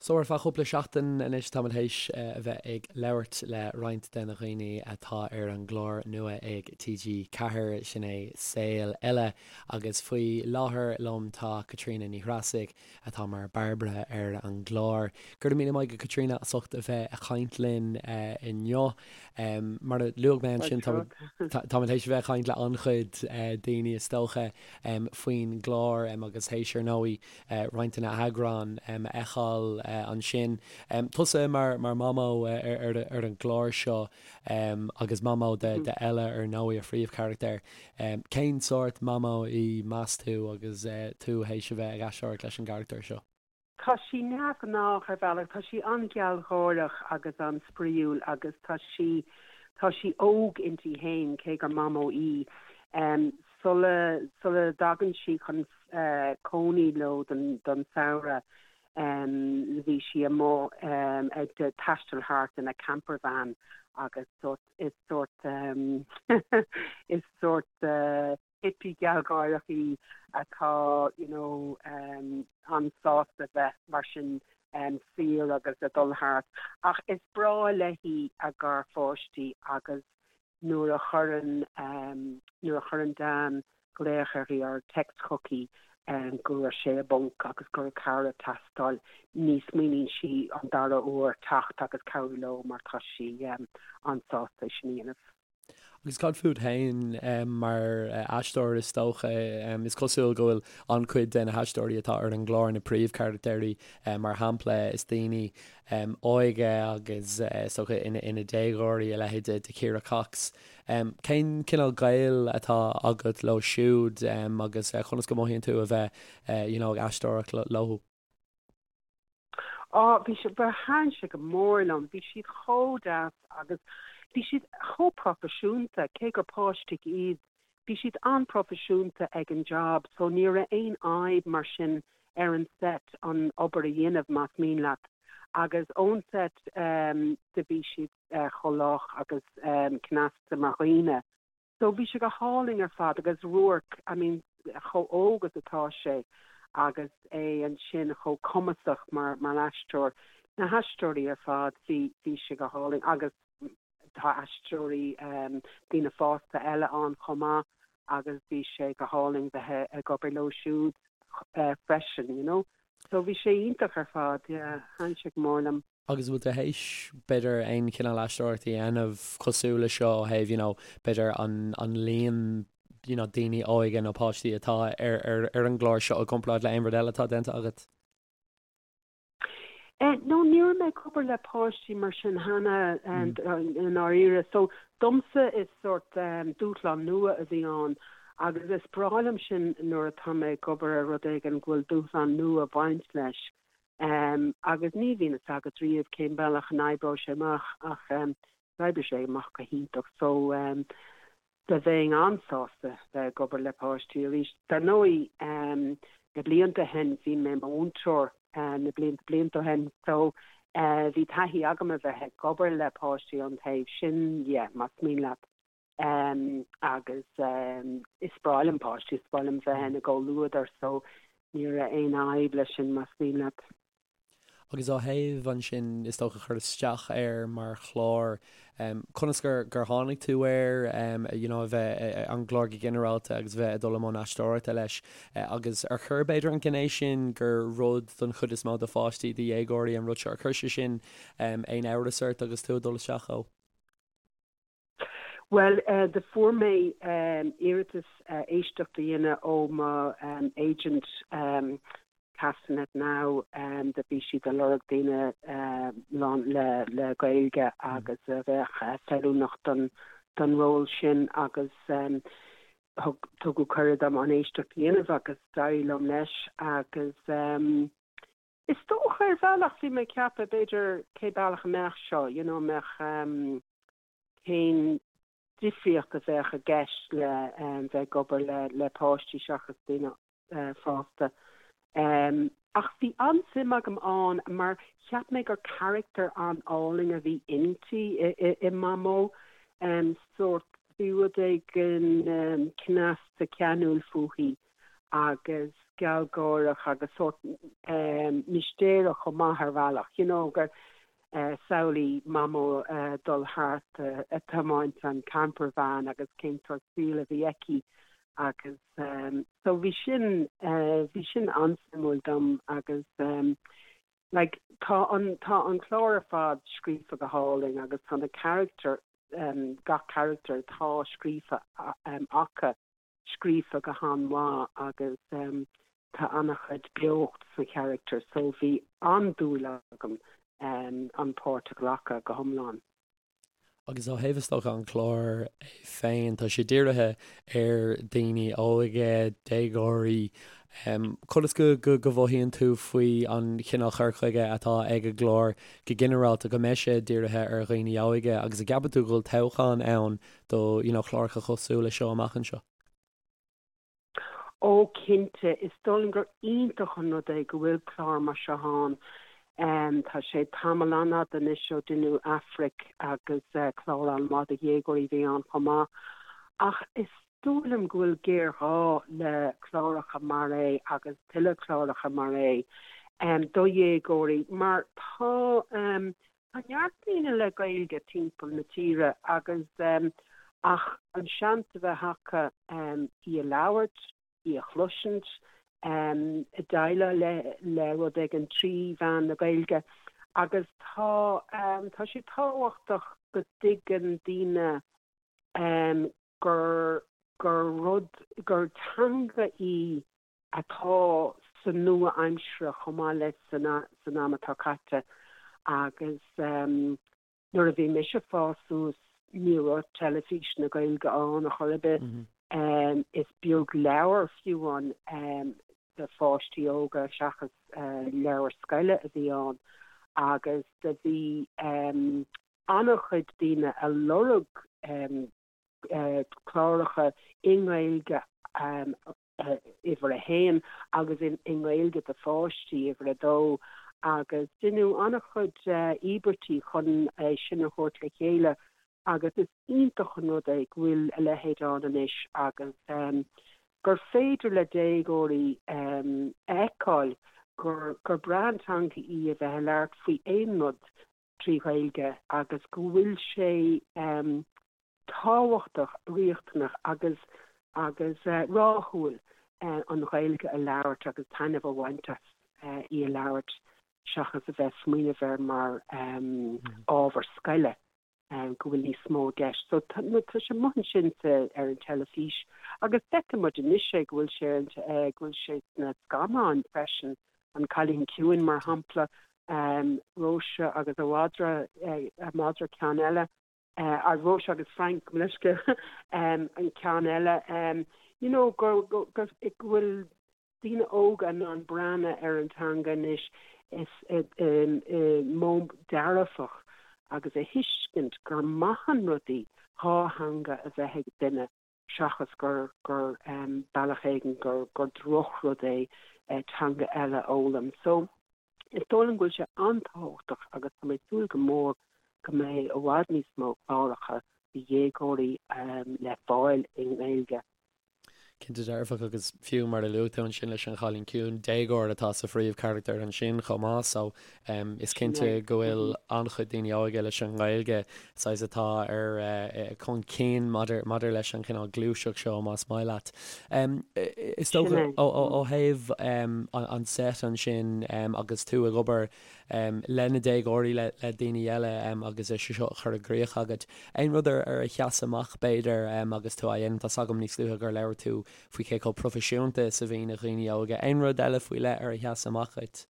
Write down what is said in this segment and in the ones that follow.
So ar feadh cúpla seachtain anois táimid théis a bheith ag labhairt le roinnt de na dhaoine atá ar an gclár nua ag TG4, sin é Saol Ella, agus faoi láthair liom tá Caitríona Ní Threasaigh atá mar Bairbre ar an gclár. Go raibh míle maith agat Caitríona as ucht a bheith ag caint linn inniu. Mar a luaigh mé ansin táimid théis a bheith ag caint le an-chuid daoine is dócha faoin gclár agus théis ar ndóigh roinnt de na heagráin a fheiceáil ansin. Tusa mar Mhamó ar an gclár seo agus Mamó d'Ella ar ndóigh, a phríomhcharachtar. Cén sórt Mamó í meas tú agus tú théis a bheith ag aisteoireacht leis an gcarachtar seo? Tá sí neamhghnách ar bhealach, tá sí an-ghealgháireach agus an-spraíúil agus tá sí, tá sí óg inti féin cé gur Mamó í. Sula, sula dtagann sí chun cónaí leo don, don samhradh, bhí sí amuigh ag taisteal thart ina campervan agus sórt, is sórt, is sórt hippie gealgháireach í atá you know an-sásta bheith mar sin saor agus ag dul thart. Ach is breá léi a garpháistí agus nuair a chuireann nuair a chuireann Dan glaoch uirthi or text chuici go raibh sé i bponc agus go raibh cabhair ag teastáil, ní smaoiníonn sí an dara huair teacht agus cabhrú leo mar tá sí an-sásta é sin a dhéanamh. Agus cad fút féin mar aisteoir is dócha? Is cosúil go bhfuil an-chuid de na haisteoirí atá ar an gclár, na príomhcharachtairí mar shampla, is daoine óga agus is dócha ina déagóirí, a leithéid de Chiara Cox. Cén cineál gaol atá agat leo siúd agus conas go mothaíonn tú a bheith you know ag aisteoireacht leo? Á, bhí sé, ba thaitin sé go mór liom, bhí siad chomh deas agus bhí siad chomh proifisiúnta, cé gur páistí iad, bhí siad an-proifisiúnta ag an job so ní raibh aon fhadhb mar sin ar an set an obair a dhéanamh más mian leat agus ón set do bhí siad chomh lách agus cneasta mar dhaoine. So bhí sé go hálainn ar fad agus Ruairc, I mean chomh óg is atá sé agus é ansin chomh cumasach mar mar aisteoir, na haisteoirí ar fad, bhí bhí sé go hálainn agus tá aisteoirí daoine fásta eile ann chomh maith agus bhí sé go hálainn bheith ag obair leo siúd freisin, you know. So bhí sé iontach ar fad, yeah, thaitin sé go mór liom. Agus bhfuil tú théis, b'fhéidir, aon chineál aisteoireacht a dhéanamh cosúil le seo ó thaobh, you know, b'fhéidir an, an líon, you know, daoine óga nó páistí atá ar, ar, ar an gclár seo i gcomparáid le aon rud eile atá déanta agat? Eh, no, ní raibh mé ag obair le páistí mar sin cheana i ndáiríre. So, domsa is sórt dúshlán nua a bhí ann agus is breá liom sin nuair atá mé ag obair ar rud éigin go bhfuil dúshlán nua ag baint leis. Agus ní bhíonn fhios agat riamh cén bealach a n-oibreoidh sé amach ach d'oibrigh sé amach go hiontach so do bheinn an-sásta bheith ag obair le páistí arís. Dar ndóigh na blianta ó shin bhí mé i mo mhúinteoir na blianta blianta ó shin so bhí taithí agam a bheith ag obair le páistí ón taobh sin dhe más mian leat. Agus is breá liom páistí, is breá liom bheith ina gcomhluadar so ní raibh aon fhadhb leis sin más mian leat. Agus ó thaobh ansin is dócha cur isteach air mar chlár, conas gur gur tháinig tú air, you know a bheith an gclár go ginearálta agus a bheith ag dul i mbun aisteoireachta leis agus ar chuir b'fhéidir an ghné sin gur rud don chuid is mó do pháistí, do dhéagóirí an rud seo, ar chuir sé sin aon amhras ort agus tú ag dul isteach dhó? Bhuel, do fuair mé iarratas éisteacht a dhéanamh ó mo agent Castanet Now, do bhí siad ag lorg daoine lán le le Gaeilge agus a bheadh feiliúnach don don ról sin agus thug tugadh cuireadh dom an éisteacht a dhéanamh agus d'éirigh liom leis agus is dócha ar bhealach bhí mé ag ceapadh b'fhéidir cé bealach a mbeadh seo, you know, mbeadh cén difríocht a bheadh i gceist le bheith ag obair le páistí seachas daoine fásta. Ach bhí an-suim agam ann mar cheap mé gur carachtar an-álainn a bhí inti, i Mamó. Sórt, bhí rud éigin cneasta ceanúil fúithi. agus gealgháireach agus sórt mistéireach chomh maith ar bhealach, you know, gur samhlaigh Mamó dul thart ag tiomáint an camper van agus cén sórt saol a bhí aici agus so bhí sin, bhí sin an-suimiúil dom agus like tá an, tá an clár ar fad scríofa go hálainn agus tá na carachtair, gach carachtar atá scríofa acu scríofa go han-mhaith agus tá an-chuid beocht sna charachtair so bhí an-dúil agam an páirt a ghlacadh go hiomlán. Agus ó thaobh is dócha an clár é féin, tá sé dírithe ar daoine óga, déagóirí. Conas go go mhothaíonn tú faoi an chineál chur chuige atá ag an gclár go ginearálta, go mbeidh sé dírithe ar dhaoine óga agus an gceapann tú go bhfuil toghchán ann do you know cláracha cosúil le seo amach anseo? Ó cinnte, is dóigh liom gur iontach an rud é go bhfuil clár mar seo ann. Tá sé tamall an-fhada anois ó deineadh Aifric agus clár an-mhaith do dhéagóirí a bhí ann chomh maith. Ach is dóigh liom go bhfuil géarghá le cláracha mar é agus tuilleadh cláracha mar é do dhéagóirí mar tá Tá neart daoine le Gaeilge timpeall na tíre agus ach an seans a bheith acu í a labhairt, í a chloisint, déileáil le rud éigin trí mheán na Gaeilge agus tá tá sé tábhachtach go dtuigeann daoine gur gur rud gur teanga í atá sa nua-aimsire chomh maith le san am atá caite agus nuair a bhí mise ag fás suas ní raibh teilifís na Gaeilge ann ar chor ar bith. Is beag leabhar fiú ann do pháistí óga seachas leabhair scoile a bhí ann agus do bhí an-chuid daoine a lorg cláracha i nGaeilge uimhir a haon agus i nGaeilge do pháistí, uimhir a dó, agus deineadh an-chuid íobairtí chun é sin a thabhairt le chéile agus is iontach an rud é go bhfuil a leithéid ann anois agus gur féidir le déagóirí a fheiceáil gur gur breá an teanga í a bheith ag labhairt faoi aon rud trí Ghaeilge agus go bhfuil sé tábhachtach, riachtanach agus agus rathúil an Ghaeilge a labhairt agus taitneamh a bhaint as í a labhairt seachas a bheith ag smaoineamh air mar ábhar scoile, go bhfuil níos mó i gceist. So tá sé amuigh ansin ar an teilifís agus feiceann muid anois é go bhfuil sé ar an go bhfuil sé sna scannáin freisin, An Cailín Ciúin mar shampla, Róise agus a mhadra, a madra ceann eile. Róise agus Frank, gabh mo leithscéal, an ceann eile, you know, go bhfuil daoine óga in ann breathnú ar an teanga anois is i modh dearfach agus a thuiscint gur maith an rud í dhá theanga a bheith ag duine seachas gur gur bealach éigin gur gur drochrud é teanga eile a fhoghlaim. So, is dóigh liom go bhfuil sé an-tábhachtach agus tá mé ag súil go mór go mbeidh i bhfad níos mó cláracha do dhéagóirí le fáil i nGaeilge. Cinnte dearfach agus fiú mar a luaigh tú ansin leis an Chailín Ciúin, déagóir atá sa phríomhcharachtar ansin chomh maith so Is cinnte go bhfuil an-chuid daoine óga leis an nGaeilge, saghas atá ar chun cinn maidir maidir leis an chineál gluaiseacht seo, más maith leat. Is dócha ó thaobh an set ansin agus tú ag obair le na déagóirí, le daoine eile agus é seo a chur i gcrích agat, aon rud ar a sheas amach b'fhéidir agus tú á dhéanamh? Tá's agam níos luaithe gur labhair tú faoi cé chomh proifisiúnta is a bhí na daoine óga. Aon rud eile faoi leith ar a sheas amach dhuit?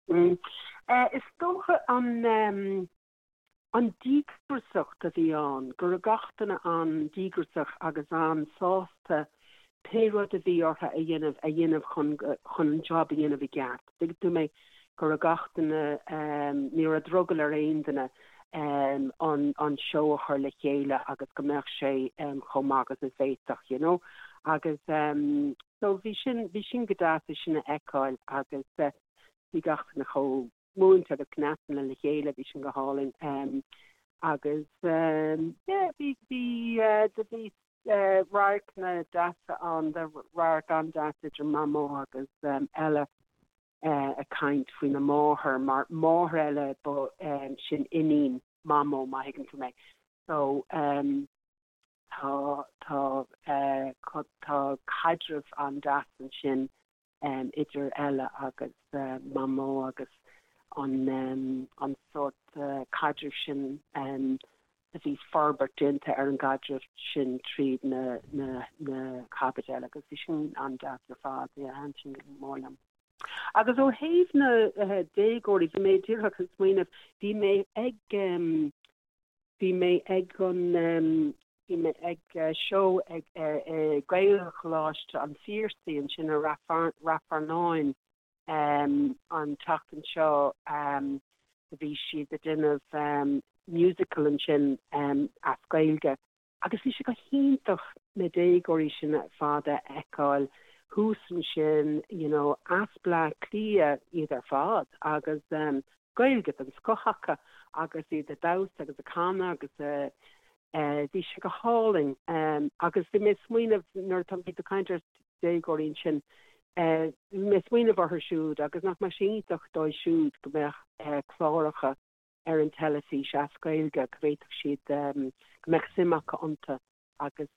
Is dócha an an díograsacht a bhí ann, go raibh gach duine an-díograsach agus an-sásta pé rud a bhí orthu a dhéanamh a dhéanamh chun chun an job a dhéanamh i gceart. Tuigeann tú mé, go raibh gach duine, ní raibh drogall ar aon duine an an seó a chur le chéile agus go mbeadh sé chomh maith agus a bhféadfadh, you know. Agus So bhí sin, bhí sin go deas é sin a fheiceáil agus bhí gach duine chomh múinte agus cneasta le chéile, bhí sin go hálainn. Agus yeah, bhí, bhí, do bhí. radharcanna deasa ann, radharc an-deas idir Mamó agus Ella ag caint faoina máthair, mar máthair Ella ba sin iníon Mamó, má thuigeann tú mé. So tá tá tá caidreamh an-deas ansin idir Ella agus Mamó agus an an sórt caidrimh sin a bhí forbairt déanta ar an gcaidreamh sin tríd na na na caibidil agus bhí sin an-deas ar fad, yeah, thaitin sin go mór liom. Agus ó thaobh na déagóirí, bhí mé díreach ag smaoineamh, bhí mé ag Bhí mé ag an, bhí mé ag seó ag Gaelcholáiste an Phiarsaigh ansin i Rath Fearnáin an tseachtain seo. Bhí siad ag déanamh musical ansin as Gaeilge agus bhí sé go hiontach na déagóirí sin ar fad a fheiceáil thuas ansin, you know, as Bleá Cliath iad ar fad agus Gaeilge den scoth acu agus iad ag damhsa agus ag canadh agus bhí sé go hálainn. Agus bhí mé ag smaoineamh nuair atá bhí tú ag caint ar déagóirí ansin, bhí mé ag smaoineamh orthu siúd agus nach mbeadh sé iontach dóibh siúd go mbeadh cláracha ar an teilifís as Gaeilge, go bhféadfadh siad, go mbeadh suim acu iontu agus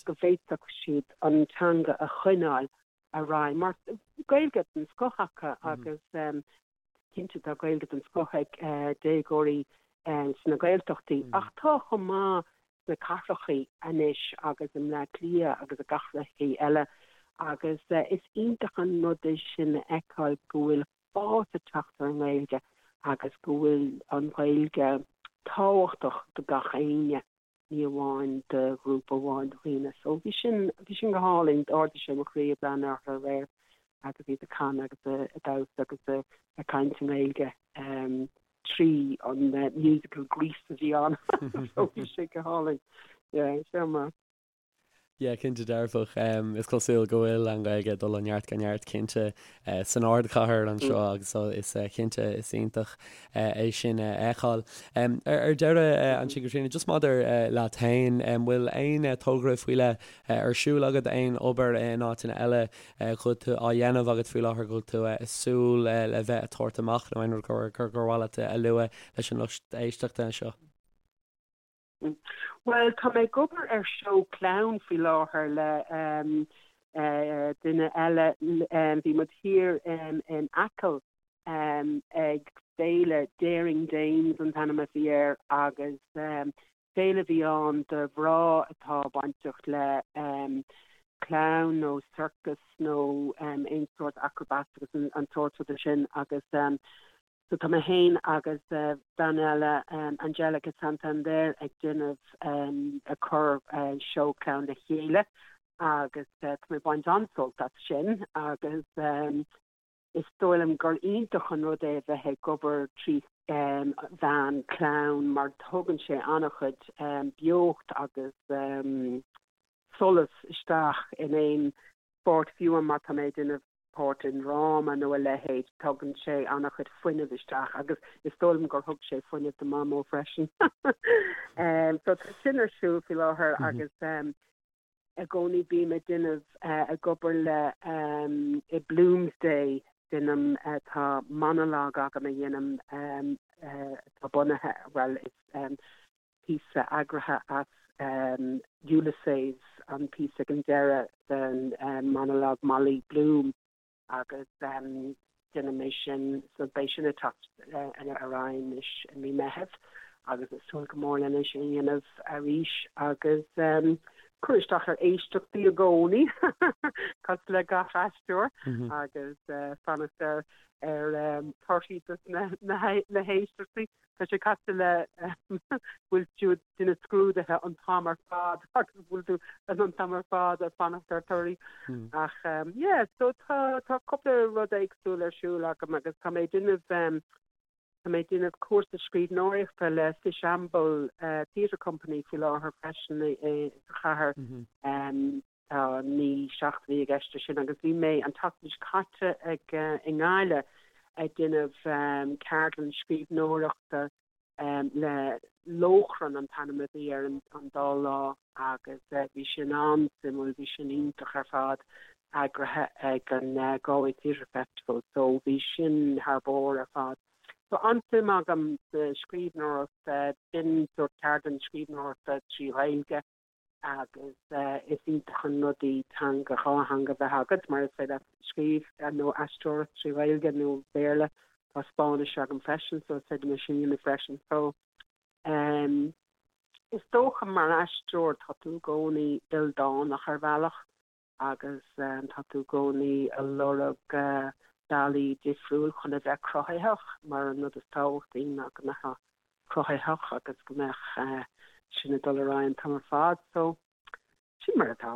go bhféadfadh siad an teanga a choinneáil ar aghaidh mar Gaeilge den scoth acu agus cinnte tá Gaeilge den scoth ag déagóirí sna Gaeltachtaí ach tá chomh maith sna cathrachaí anois agus i mBleá Cliath agus i gcathrachaí eile agus is iontach an rud é sin a fheiceáil go bhfuil fás ag teacht ar an nGaeilge agus go bhfuil an Ghaeilge tábhachtach do gach éinne. ní amháin do ghrúpa amháin de dhaoine. So bhí sin, bhí sin go hálainn, d'ardaigh sé mo chroí ag breathnú orthu aréir agus iad ag canadh agus ag damhsa agus ag caint i nGaeilge trí an musical Grease a bhí ann. So bhí sé go hálainn. Yeah, seo mar. Yeah, cinnte dearfach. Is cosúil go bhfuil an Ghaeilge ag dul ó neart go neart cinnte san ardchathair anseo agus is cinnte is iontach é sin a fheiceáil. Ar deireadh ansin Caitríona, just maidir leat féin, an bhfuil aon togra faoi leith ar siúl agat, aon obair in áiteanna eile go bhfuil tú á dhéanamh agat faoi láthair, go bhfuil tú ag súil le bheith ag tabhairt amach nó aon rud gur mhaith leat a lua leis an lucht éisteachta anseo? Bhuel, tá mé ag obair ar seó clown faoi láthair le duine eile. Bhí muid thiar in Acaill ag féile Daring Dames an t-ainm a bhí air agus féile a bhí ann do mhná atá bainteach le clown nó circus nó aon sórt acrobats agus an sórt ruda sin agus So tá mé féin agus bean eile, Angelica Santander, ag déanamh, ag cur seó clown le chéile agus tá mé ag baint an-sult as sin agus is dóigh liom gur iontach an rud é a bheith ag obair trí mheán clown mar tugann sé an-chuid beocht agus solas isteach in aon pháirt fiú má tá mé ag déanamh páirt i ndráma nó a leithéid, tugann sé an-chuid fuinnimh isteach agus is dóigh liom gur thug sé fuinneamh do Mhamó freisin. So tá sin ar siúl faoi láthair agus i gcónaí bím ag déanamh, ag obair le i Bloomsday, déanaim, tá monologue agam a dhéanaim atá bunaithe, bhuel is píosa eagraithe as Ulysses, an píosa ag an deireadh den monologue Molly Bloom agus déanaim é sin, so beidh sin ag teacht ar aghaidh anois i mí Meitheamh agus ag súil go mór lena sin a dhéanamh arís agus cur isteach ar éisteachtaí i gcónaí cosúil le gach aisteoir agus fanacht ar ar torthaí dos na héisteachtaí. Tá sé cosúil le bhfuil tú ag déanamh scrúduithe an t-am ar fad agus bhfuil tú an t-am ar fad ag fanacht ar torthaí. Ach yeah, so tá tá cúpla rud éagsúil ar siúl agam agus tá mé ag déanamh tá mé ag déanamh cúrsa scríbhneoireachta le Fishamble Theatre Company faoi láthair freisin i sa chathair. Tá 9 seachtainí i gceist leis sin agus bhí mé an tseachtain seo caite ag i nGaillimh ag déanamh ceardlann scríbhneoireachta. Le Lóchrann an t-ainm a bhí ar an dá lá agus bhí sin an-suimiúil, bhí sin iontach ar fad, eagraithe ag an Galway Theatre Festival so bhí sin thar barr ar fad. So an-suim agam sa scríbhneoireacht, b'in sórt ceardlann scríbhneoireachta trí Ghaeilge agus is iontach an rud í teanga, dhá theanga a bheith agat mar is féidir leat scríobh nó aisteoireacht trí Ghaeilge nó Béarla. Tá Spáinnis agam freisin so is féidir liom é sin a dhéanamh freisin. So um, is dócha mar aisteoir tá tú i gcónaí ildánach ar bhealach agus tá tú i gcónaí ag lorg bealaí difriúil chun a bheith cruthaitheach mar an rud is tábhachtaí ná go mbeifeá cruthaitheach agus go mbeadh sin ag dul ar aghaidh an t-am ar fad. So, sin mar atá.